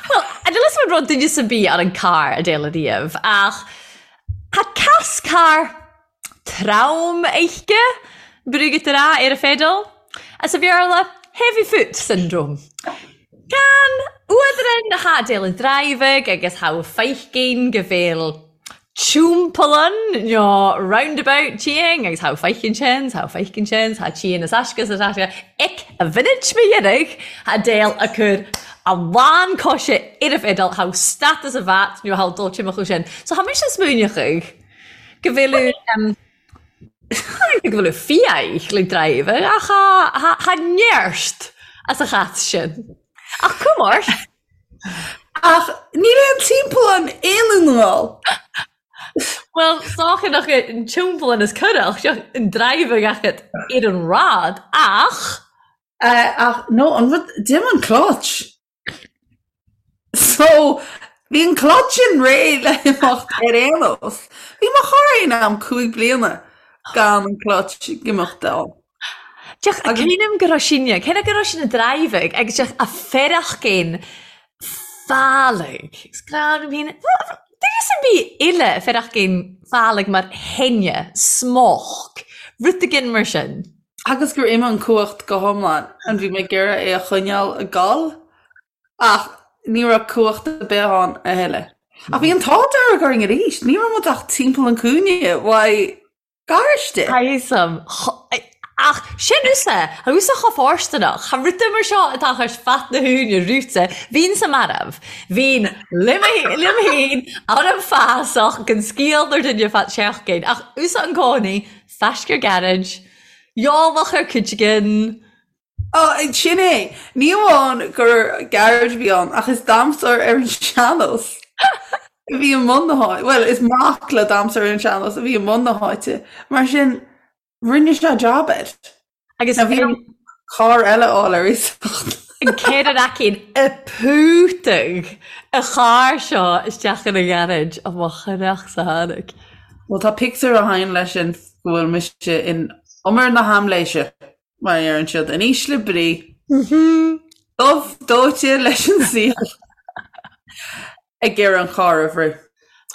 Speaker 2: Bhuel, níl 'fhios a'm an raibh duine sa bith ar an carr Adele ariamh ach tá cas carr trom uisce brúghat ar a ar a feidil as a Bhéarla heavy foot syndrome. Can uadran tha Adele ag driving agus tha feicinn go bhfuil Timpeallán nó roundabout tíng agus tha feicinn sin, tha feicinn sin, tha tían is aisce is aisce ic a mhinit mo dheiridh tha Adele a cur a lán coise ar a feidil tha status a bhat nó tha dul timcheall sin. So tha mise smaoineachadh go bhfuil go bhfuil fiaich le driver ach tha neart as a chat sin. Ach cumar!
Speaker 3: Ach níl aon timpeallán aon Dhún na nGall.
Speaker 2: Bhuel, 's dòcha nach an timpeallán is corrach, seo an driving agat ar an rad, ach.
Speaker 3: Ach no, an rud, d'imigh an clutch. So, bhí an clutch sin réidh le himeacht ar aon nós. Bhí mo charr aon am 5 bliana gan an clutch ag imeacht ann.
Speaker 2: Deoch, a cuimhním go raibh sinne, cé go raibh sinne driving agus deoch a fearachcéin fálaigh. Is grá liom féin, duine sa bith uile fearachcéin fálaigh mar theine, smock, rud éigin mar sin.
Speaker 3: Agus gur imigh an cumhacht go hiomlán, an bhí mé ag iarraidh é a choinneáil ag gol ach ní raibh cumhacht ar bith ann a thuilleadh. Ach bhí an t-ádh dearg orainn arís, ní raibh muid ach timpeall an cúinne uaidh garáiste.
Speaker 2: Thaism. Ach sin usa, tha usa cho fóirsteanach. Tha ruda mar seo a' tachairt fat na húine rúite. Bhínn-sa marbh. Bhínn liom fhéin ar an bhfásach gan sciáil nár duine fat seachtain. Ach usa an cónaí, faiscear gairid, eolach ar cuid
Speaker 3: Ó, sin é. Ní amháin gur garage a bhí ann, ach is damhsóir ar an sean-nós a bhí i mbun na háite. Bhuel, is mac le damhsóir ar an sean-nós a bhí i mbun na háite. Mar sin, rinne sé jab air.
Speaker 2: Agus
Speaker 3: Now, bhí orm carr eile a fháil ar iasacht.
Speaker 2: An céad aicín a pútadh a charr seo isteach ina gharáid, ó mo chreach sa tháinig.
Speaker 3: Bhuel, tá pictiúr a thagann leis sin go bhfuil mise in umar na haimléise. Mar a deireann siad, in ísle brí. Dubh dóite leis an saol ag iarraidh an carr a bhrú.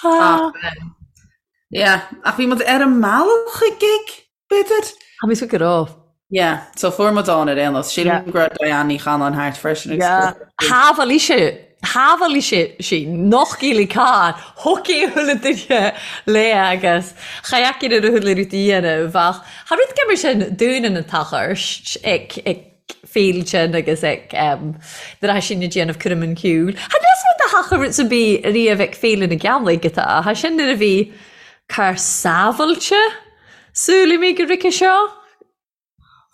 Speaker 3: Ach, yeah, ach bhí muid ar an mbealach chuig gig. B'fhéidir?
Speaker 2: Tá mé go raibh.
Speaker 3: Yeah, so fuair muid ann ar aon nós. Sílim go raibh Diane Ní Chanáin thart freisin agus
Speaker 2: Yeah. Shábháil sé, shábháil sé sí nach gcílí carr, hockey chuile duine léi agus cha fheicfinn ar a chuile rud a dhéanamh ach cha rud go mar sin dúinn an t-achairt ag ag féilte agus ag nuair atá sinn ag déanamh cúram an chiúil. Cha níl fhios a'm tha rud ar bith riamh ag Féile na Gealaigh atá, tha sin nuair a bhí carr sábháilte Súil mé go rice seo.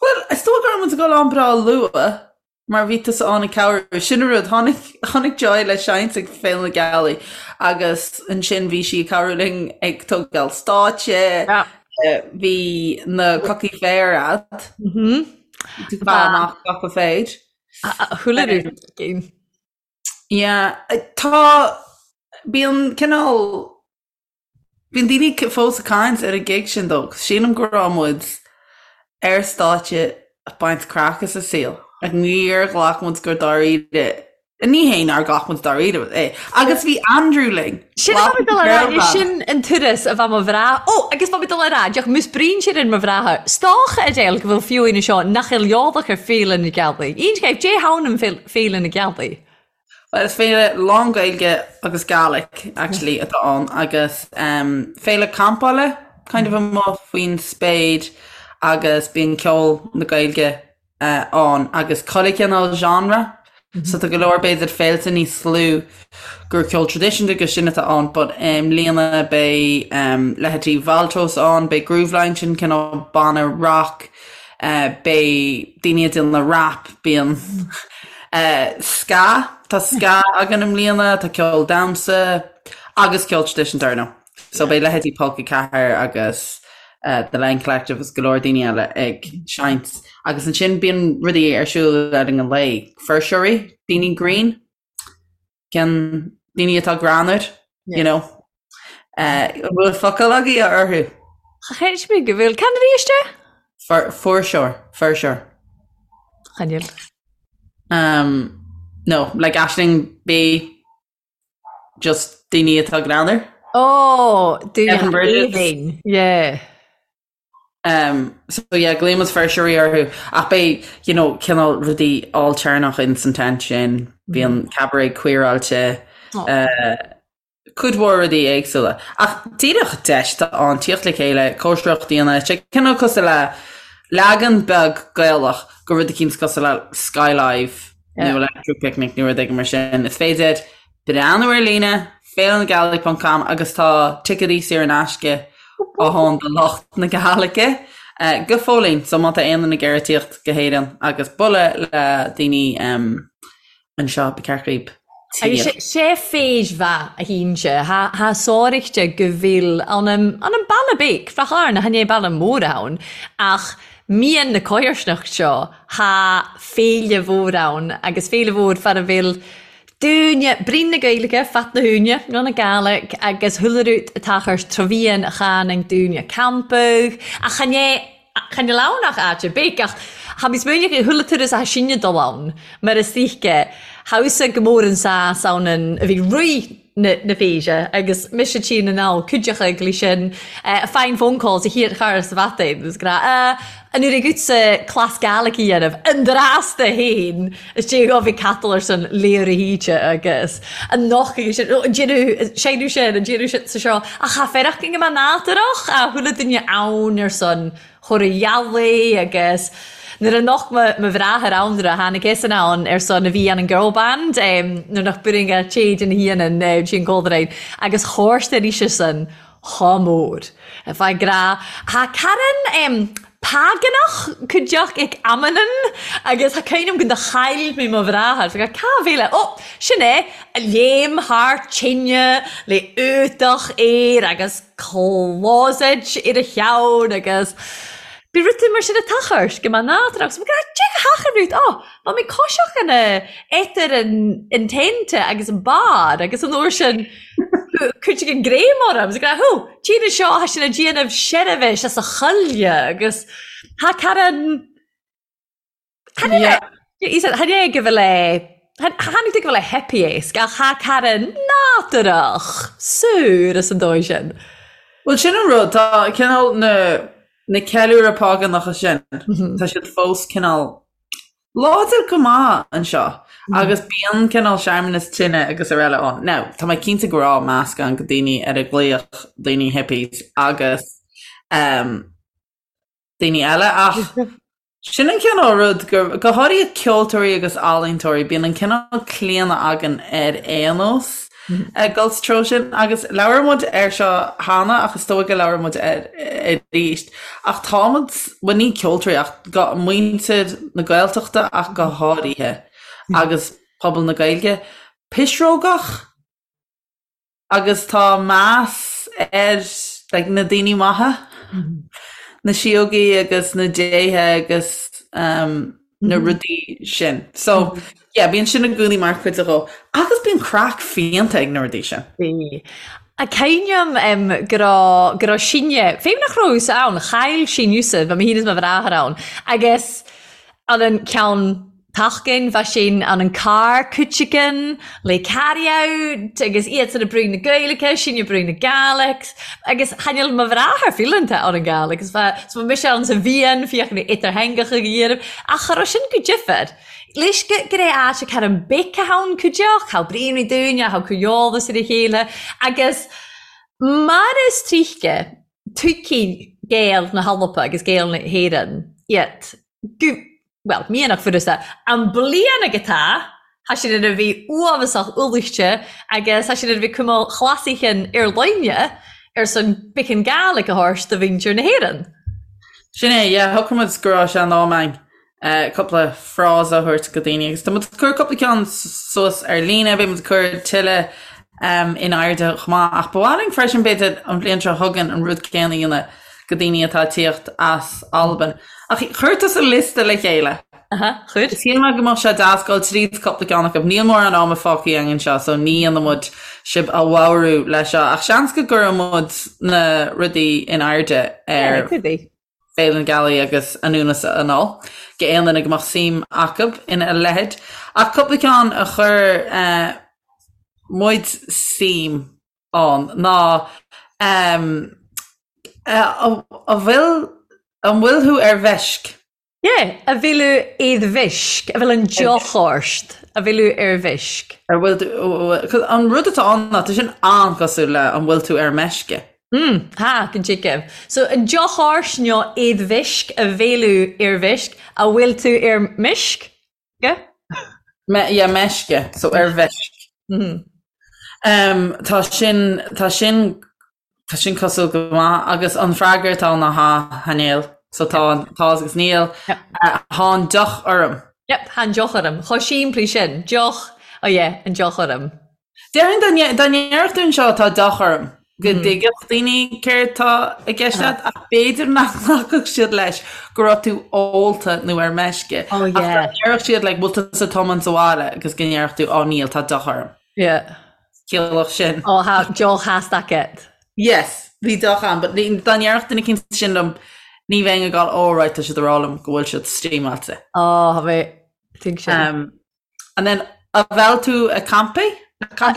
Speaker 3: Bhuel, is dóigh go raibh muid ag dul ann breá luath mar bhí tusa ann ag cabhrú. Sin an rud, tháinig, tháinig Joy le seinnt ag Féile na Gealaí agus ansin bhí sí ag cabhrú linn ag tógáil stáitse, bhí na cocaí féir a'd. Tú fá amach coca féir.
Speaker 2: Chuile rud againn.
Speaker 3: Yeah, tá, bíonn cineál Bíonn daoine fós ag caint ar an gig sin though, sílim go raibh muid ar stáitse ag baint craic as an saol. Like níor ghlac muid go dáiríre, ní hé nár ghlac muid dáiríre é, agus bhí Andrew linn!
Speaker 2: Sin a bheadh mé dul a rá, sin an turas a bheadh mo bhreá, ó agus bheadh mé dul a rá, deoch mus brín sin ar mo bhreátha, stocha a deil go bhfuil fiú aoine seo nach eil eolach ar Féile na Gealaí. Aon Dé hAmhain an Féile na Gealaí.
Speaker 3: Bhuel, is féile lán-Ghaeilge agus Gaelic actually atá ann agus um, féile campála kind of amuigh faoin spéir agus bíonn ceol na Gaeilge uh, ann agus chuile chineál genre. Mm -hmm. So tá go leor b'fhéidir féilte níos lú gur ceol traidisiúnta agus sin atá ann, but i mbliana beidh um, leithéidí Valtros ann, beidh Grooveline sin cineál banna rock, uh, beidh daoine ag déanamh rap, bíonn Ska, tá ska againn i mbliana, tá ceol damhsa agus ceol traidisiúnta ar ndóigh. So beidh leithéidí Polca 4 agus The Len Collective agus go leor daoine eile ag seinnt. Agus ansin bíonn rudaí ar siúl le linn an lae, fuirseoirí, daoine grinn. Cén daoine atá greannmhar, you know. An bhfuil focal agaibh orthu?
Speaker 2: Cheist mé go bhfuil. Cén arís é?
Speaker 3: Fuirseoir, fuirseoir.
Speaker 2: Chan eil.
Speaker 3: Um, no, like Aisling B, just daoine atá greannmhar.
Speaker 2: Oh, daoine aoibhinn, yeah.
Speaker 3: Um, so yeah, glaonn muid fuirseoirí orthu ach beidh, you know, cineál rudaí ailtéarnach in san tent sin, bíonn mm. cabaret queeráilte, oh. uh, cuid mhór rudaí éagsúla. Ach díreach deis atá ann tíocht le chéile, cóisireacht a dhéanamh, sé cineál cosúil le leagan beag Gaelach de rud eicínt cosúil le Skylive nó Electric Picnic nó rud éigin mar sin. Is féidir breathnú ar líne, féilenagealaigh ponc com agus tá ticéadaí saor in aisce ann do lucht na Gaeilge go fóillín so má tá aon duine ag iarraidh tíocht go hÉirinn agus bualadh le daoine anseo ba cheart dhaoib
Speaker 2: Agus tíocht. sé féis mhaith a shínse, tha sáraichte go bhfuil ann an an baile beag, Ráth Chairn, chan é baile mór ann, ach mian na comharsanacht seo, tha féile mhór ann agus féile mhór far a bhfuil Dúine, Brín na Gaeilge, Fat na hÚine, nó na Gaelic, agus chuile rud atá chur trabhaíonn a chan ag dúine campadh, ach chan é, chan eil ann ach áit ar bith, ach tha mi smaoineach ar chuile turas a tha sinne dul ann, mar is oíche, thamhsa go mór an sás ann an, a bhí rith na, na féise, agus mise tinn anall, cuideachta ag sin, fine phone calls a thiar char sa bhatainn, agus gra, An uair agatsa cleas Gaelic a dhéanamh, an drasta fhéin, is dé go bhí catal ar son léir a híte agus an noch agus sin, an déanamh, seinneadh sin, an déanamh sin sa seo, ach cha fearach go mbeadh nádúrach a chuile duine ann ar son chóir a dhealaigh agus nuair a nocht mo mo bhráthair ann nuair a tháinig eisean ann ar son a bhí an an girl band nuair nach b'fhírinne a téid ina hianann sí an Coldrain agus chóirste arís san Chomh mór. Fá grá. Thá Karen págánach cuideach ag amannan agus thá cuimhne agam go do chaill mé mo bhráthair. Fá cá bhféile. Ó! Sin é! A léim thar tine le útach air agus closet ar a cheann agus bhí rud mar sin ag tochairt go mbeadh nádúr agus go dtig a theach an rud. Ó! Bha mi coiseach ina etar an tent agus an bar agus an uair sin Cuideadh an greim orm agus ag rá, Hú, tine seo, thá sin ag déanamh seirbhis as a choille agus thá Karen, chan é, chan é go bhfuil é, chan é go bhfuil é hippie-esque ach thá Karen nádúrach, saor as an dóigh sin.
Speaker 3: Bhuel sin an rud, tá cineál na. Na ceiliúradh págánacha sin, tá siad fós cineál láidir go maith anseo agus bíonn cineál searmanas tine agus araile ann. Now, tá mé cinnte go raibh meascán de daoine ar a glaodh daoine hippies agus um, daoine eile ach sin an cineál rud gur, go háirithe ceoltóirí agus ealaíontóirí, bíonn an cineál claonadh againn ar aon nós ag dul sa treo sin agus labhair muid air seo cheana ach is dóigh go labhair muid air arís ach tá muid, bhuel ní ceoltóirí ach go, muintir na Gaeltachta ach go háirithe agus pobal na Gaeilge, pisreogach? Agus tá meas ar like na daoine maithe, na síógaí agus na déithe agus um, na rudaí sin. So, yeah, bíonn sin i gcónaí mar chuid de dhó. Agus bíonn craic fiánta ag na rudaí sin.
Speaker 2: Bhí. A cuimhním um, go raibh go raibh sinne, féin nach raibh ann, chaill sinn Yusuf, bhí mé féin is mo bhráthair ann, agus an an ceann Tachgain bha sin ann an carr cuiteagan le carry out agus iadsan ag brú na Gaeilge, sinn ag brú na Gàidhlig agus tha mo bhráthair fileanta ann an Gàidhlig agus bha so bha mise ann sa bhfiann féachann idirtheangacha go dhéanamh ach cha raibh sin go difear. Leis go go raibh áit ag cur an bic a ann cuideach, thá braonraí dúinne, thá cur eolas ar a chéile agus mar is tríthce tuigfidh Gaeil na hAlba agus Gaeil na hÉireann iad go bhuel, mianach furasta, an bliain ag atá, thá sin ina bhí uafasach ualaiste agus thá sin ina bhí cuma chlasaichin ar loinne ar son biceann Gàidhlig a thabhairt do mhuintir na hÉireann.
Speaker 3: Sin é, yeah, shocraigh muid go raibh sé in am againn cúpla frása a thabhairt go daoine agus tá muid ag cur cúpla ceann suas ar líne, beidh muid ag cur tuilleadh in airde chomh maith ach ba mhaith linn freisin b'fhéidir an bhliain seo chugainn an rud céanna a dhéanamh go daoine atá ag tíocht as Albain. Ach chuir tusa liosta le chéile.
Speaker 2: Aha, chuir.
Speaker 3: Shíl mé go mbeadh sé deas dul tríd cúpla ceann acu. Níl mórán ama fágtha againn anseo so ní dhéanfaidh muid sibh a bhodhrú leis seo ach seans go gcuirfidh muid na rudaí in airde ar Féile na Gealaí agus anonn is anall go aon duine go mbeadh suim acu ina leithéid. Ach cúpla ceann a chuir muid suim ann ná an bhfuil an bhfuil thú ar mheisc?
Speaker 2: Yeah, a bhfuil thú ar mheisc, a bhfuil an deoch ort, a bhfuil thú ar mheisc.
Speaker 3: Ar bhfuil tú, 'cause an rud atá ann ná tá sin an-chosúil le an bhfuil tú ar meisce.
Speaker 2: Mm, ha, go dtuigim. So an deoch ort nó ar mheisc, a bhfuil thú ar mheisc, a bhfuil tú ar meisc? Yeah?
Speaker 3: Me, yeah, meisce, so ar mheisc. Mm -hmm. Um, tá sin, tá sin, tá sin cosúil go maith agus an freagra atá ná ha, tha níl. So tá an tá agus níl.
Speaker 2: Yep.
Speaker 3: Uh, thá an deoch orm.
Speaker 2: Yep, thá an deoch orm. Chomh simplí sin. Deoch, oh yeah, an deoch orm.
Speaker 3: Déarfainn dá nde- dá ndéarfadh tú anseo tá deoch orm, go dtuigfeadh daoine céard tá i gceist leat ach b'fhéidir nach nglacfadh siad leis go raibh tú ólta nó ar meisce.
Speaker 2: Oh
Speaker 3: Ach dá
Speaker 2: yeah.
Speaker 3: ndéarfadh siad like bhfuil tusa ag tiomáint abhaile agus go ndéarfadh tú oh níl tá deoch orm.
Speaker 2: Yeah.
Speaker 3: Chiallódh sin.
Speaker 2: Oh tha deoch theasta agat.
Speaker 3: Yes, bhí deoch ann but ní- dá ndéarfadh duine eicínt sin liom ní bheinn ag gabháil oh right tá siad ag rá liom go bhfuil siad steamáilte.
Speaker 2: Oh, tha mé tuig sin.
Speaker 3: Um, And then, a bhfuil tú ag campaí?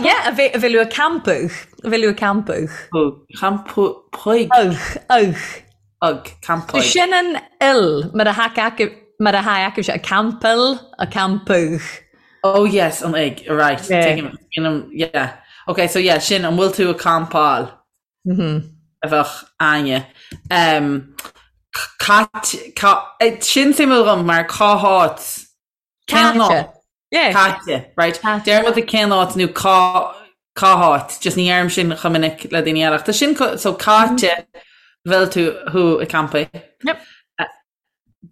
Speaker 2: Yeah, a bhfuil tú ag campadh. A bhfuil tú ag campadh.
Speaker 3: Campaigh.
Speaker 2: Ugh, ugh.
Speaker 3: Ugh, campaigh.
Speaker 2: Sin an il, mar a tha mar a tha acu ag campaill, ag campadh.
Speaker 3: Oh yes, an ig, right. Yeah. Yeah. Okay, so yeah, sin, an bhfuil tú ag campáil?
Speaker 2: Mm -hmm.
Speaker 3: A bheadh Áine. Um, Cait, ca, eh, sin suimiúil dhom mar cá háit
Speaker 2: Cén áit?
Speaker 3: Yeah. Caite, right? Deir muid cén áit nó cá cá háit, just ní dheirim sin chomh minic le daoine eile. Tá sin so caite bhfuil tú thú ag campaí.
Speaker 2: Yep.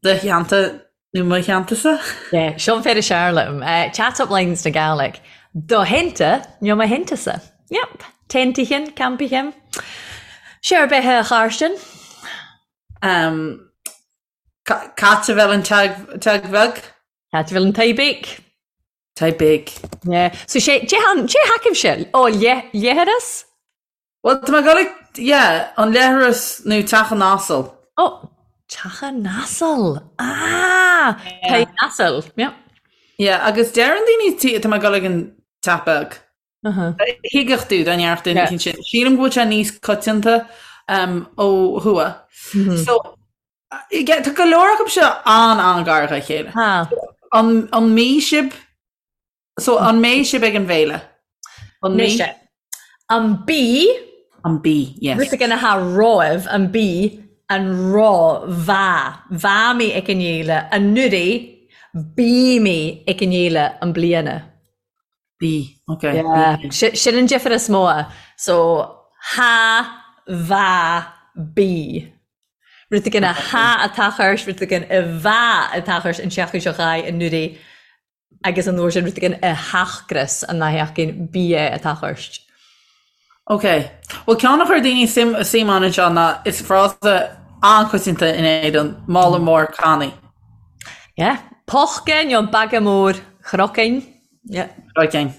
Speaker 3: Do theannta nó mo theanntasa?
Speaker 2: Yeah, seo an fear is fearr liom. Uh, chat up lines na Gàidhlig. Do theannta nó mo theanntasa. Yep. Teintichen, campichen. Sé ar bith a Charstin?
Speaker 3: Um, Cait a bhfuil an teig bheag?
Speaker 2: Cait a bhfuil an tigh beag?
Speaker 3: Tigh beag.
Speaker 2: Yeah. So sé, cé han, cé thacaimse? Ó, leithreas?
Speaker 3: Well, tá mé ag dul ag, yeah, an leithreas nó teach an asail.
Speaker 2: Ó, teach an asail. Ah! Tigh an asail. Yeah.
Speaker 3: Yeah, agus deireann daoine, tá mé ag dul ag an teach beag. Thuigfeadh tú dá ndéarfadh duine eicínt sin. Sílim go bhfuil sé níos coitianta ó thuaidh. So. Tá go leor acu seo an-an-ghar dá chéile. An an mbeidh sibh so an mbeidh sibh ag an bhféile?
Speaker 2: An mbeidh? An bí
Speaker 3: An bí, yes.
Speaker 2: Rud éigin atá romhaibh, an bí, an ro, bha, bha mé ag an fhéile anuraidh, bí mé ag an fhéile i mbliana.
Speaker 3: Bí, ok.
Speaker 2: Yeah, sin an difear is mó. So, ha, bha, bí. Rud éigin a ha atá chuirs, rud éigin a bha atá chuirs an tseachtain seo chuaigh anuraidh agus an uair sin rud éigin a theachgras an sheachtain bí é atá chuirs.
Speaker 3: Ok. Bhuel ceann a chuir daoine suim suim ann anseo ná is frása an-choitianta in Éirinn, mála mór cannaí.
Speaker 2: Yeah. Pochca nó baga mór chrocinn. Yeah.
Speaker 3: Chrocinn.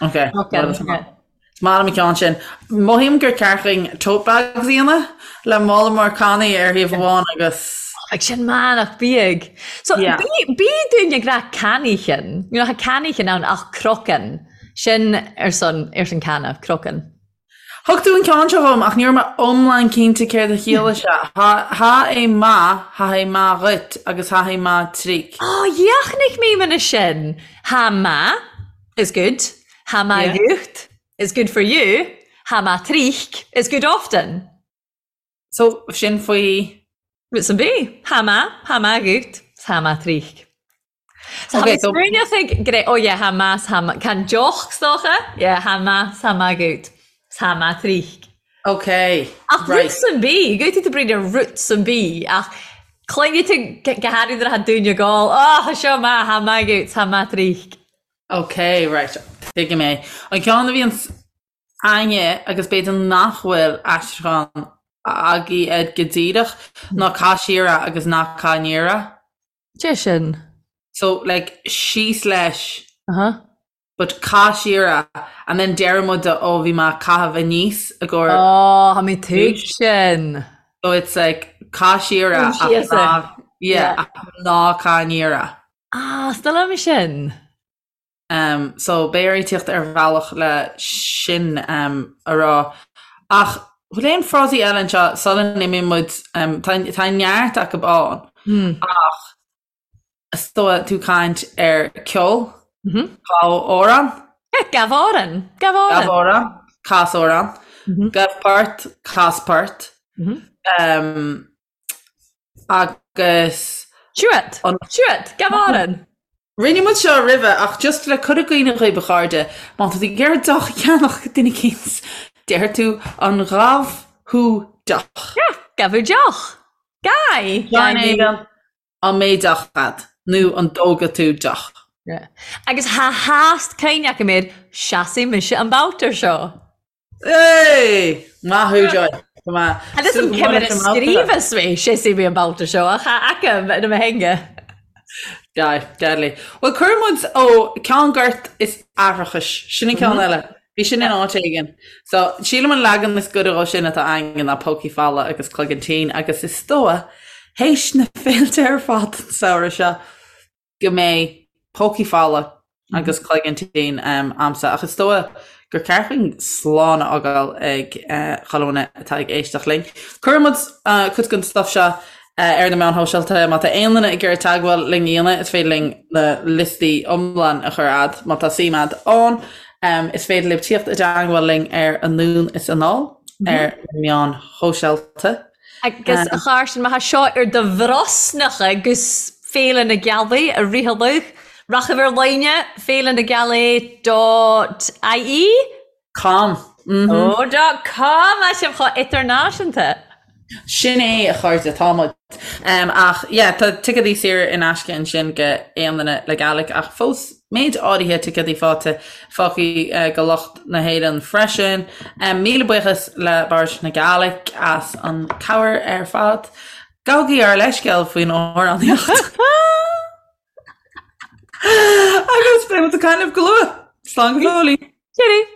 Speaker 3: Ok. Chrocinn. Is maith liom an ceann sin. Mothaím gur ceart dhúinn tote bags a dhéanamh le mála mór cannaí ar thaobh amháin agus.
Speaker 2: Bheadh sin maith nach bíodh. So Yeah. bí bí dúinn ag rá cannaíchean. You know, tá cannaíchean ann ach crocann. Sin ar son ar son canna, crocann.
Speaker 3: Thug tú an ceann seo dhom ach ní raibh mé iomlán cinnte céard a chiallaigh sé. Tha tha é maith, tha é maith dhuit agus tha é maith tríc.
Speaker 2: Ó, dheachnaigh mé mana sin. Tha maith is good. Tha maith dhuit is good for you, tha maith trích is good often.
Speaker 3: So, sin faoi.
Speaker 2: Rud san bith. Tha maith, tha maith dhuit, tha maith trích. So, okay, so... Smaoineach ag gré, oh yeah, tha maith, tha maith, can deoch 's dócha? Yeah, tha maith, tha maith dhuit, tha maith trích.
Speaker 3: Okay,
Speaker 2: Ach right. rud san bith, gabhfaidh tú bríd ar rud san bith, ach cluinfidh tú go háirithe nuair atá daoine ag ól, oh, tha seo maith, tha maith dhuit, tha maith trích.
Speaker 3: Ok, right, tuigim é. An ceann a bhíonns a'inne agus b'fhéidir nach bhfuil aistriúchán agaibh air go díreach ná caith siar é agus ná caith aniar é.
Speaker 2: Cé sin?
Speaker 3: So, like, síos leis, Uh-huh. but caith siar é and then deireann muid ó bhí mé ag caitheamh aníos i gcomhair
Speaker 2: Oh, tha mi tuig sin.
Speaker 3: So it's like caith siar é ach Síos é. ná, yeah, Yeah. ach ná caith aniar é.
Speaker 2: Ah, 's dóigh liom sin.
Speaker 3: Um, so beidh orainn tíocht ar bhealach le sin um, a rá. Ach bhfuil aon frásaí eile anseo sula n-imíonn muid, um, tá, tá neart acu ann, mm. ach is dóigh tú caint ar ceol, mm -hmm. gabh amhrán.
Speaker 2: Yeah, gabh amhrán. Gabh amhrán.
Speaker 3: Gabh amhrán, cas amhrán. Mm -hmm. Gabh port, cas port. Mm -hmm. um, Agus.
Speaker 2: Siúd! Siúd! Gabh amhrán!
Speaker 3: Rinne muid seo roimhe ach just le cur i gcuimhne dhaoibh a chairde, má tá tú ag iarraidh deoch a cheannach ag duine eicínt, deir tú an gabh thú deoch.
Speaker 2: Yeah, gabh thú deoch. Gabh!
Speaker 3: Gabh éigin, an mbeidh deoch a'd nó an dtógfaidh tú deoch.
Speaker 2: Yeah. Agus tha theast cuimhne agam air, seasfaidh mise an babhta seo.
Speaker 3: Hey! Maith thú, Joy. Go
Speaker 2: maith. Agus an cimire scríobhas mé, seasfaidh mé an babhta seo, ach tha agam ina mo theanga.
Speaker 3: Deadly, deadly. Bhuel, cuireann muid ó ceann goirt is aithreachais. Sin an ceann mhm. eile. Bhí sin in áit éigin. So, sílim an leagan is goire dhó sin atá againn ná pócaí fola agus cloigeann tinn agus is dóigh, théis na féilte ar fad an samhradh seo, go mbeidh pócaí fola agus cloigeann tinn a'msa ach is dóigh gur ceart dúinn slán a fhágáil ag chuile dhuine atá ag éisteacht linn. Cuirfidh muid cuid den stuff seo ar na meáin shóisialta. Má tá aon duine ag iarraidh teagmháil linn a dhéanamh, is féidir linn na liostaí iomlán a chur a'd má tá suim a'd ann. Is féidir libh tíocht i dteagmháil linn ar Anonn is Anall ar na meáin shóisialta.
Speaker 2: Agus a Cháirsin, má thá seo ar do bhrosnacha agus Féile na Gealaí a ritheadh, rachaibh ar líne, Féile na Gealaí dot ie?
Speaker 3: Com.
Speaker 2: Ó, dot com! Tá sibh chomh idirnáisiúnta!
Speaker 3: Sin é, a chairde, tá muid. Ach yeah, tá ticéadaí saor in aisce ansin go aon duine le Gaelic ach fós méid áirithe ticéadaí fáite fágtha go lucht na hÉireann freisin. Míle buíochas le Bord na Gaelic as an cabhair ar fad. Gabhaigí ár leithscéal faoin amhránaíocht. Agus beidh muid ag caint libh go luath. Slán go fóillí.
Speaker 2: Cheerio.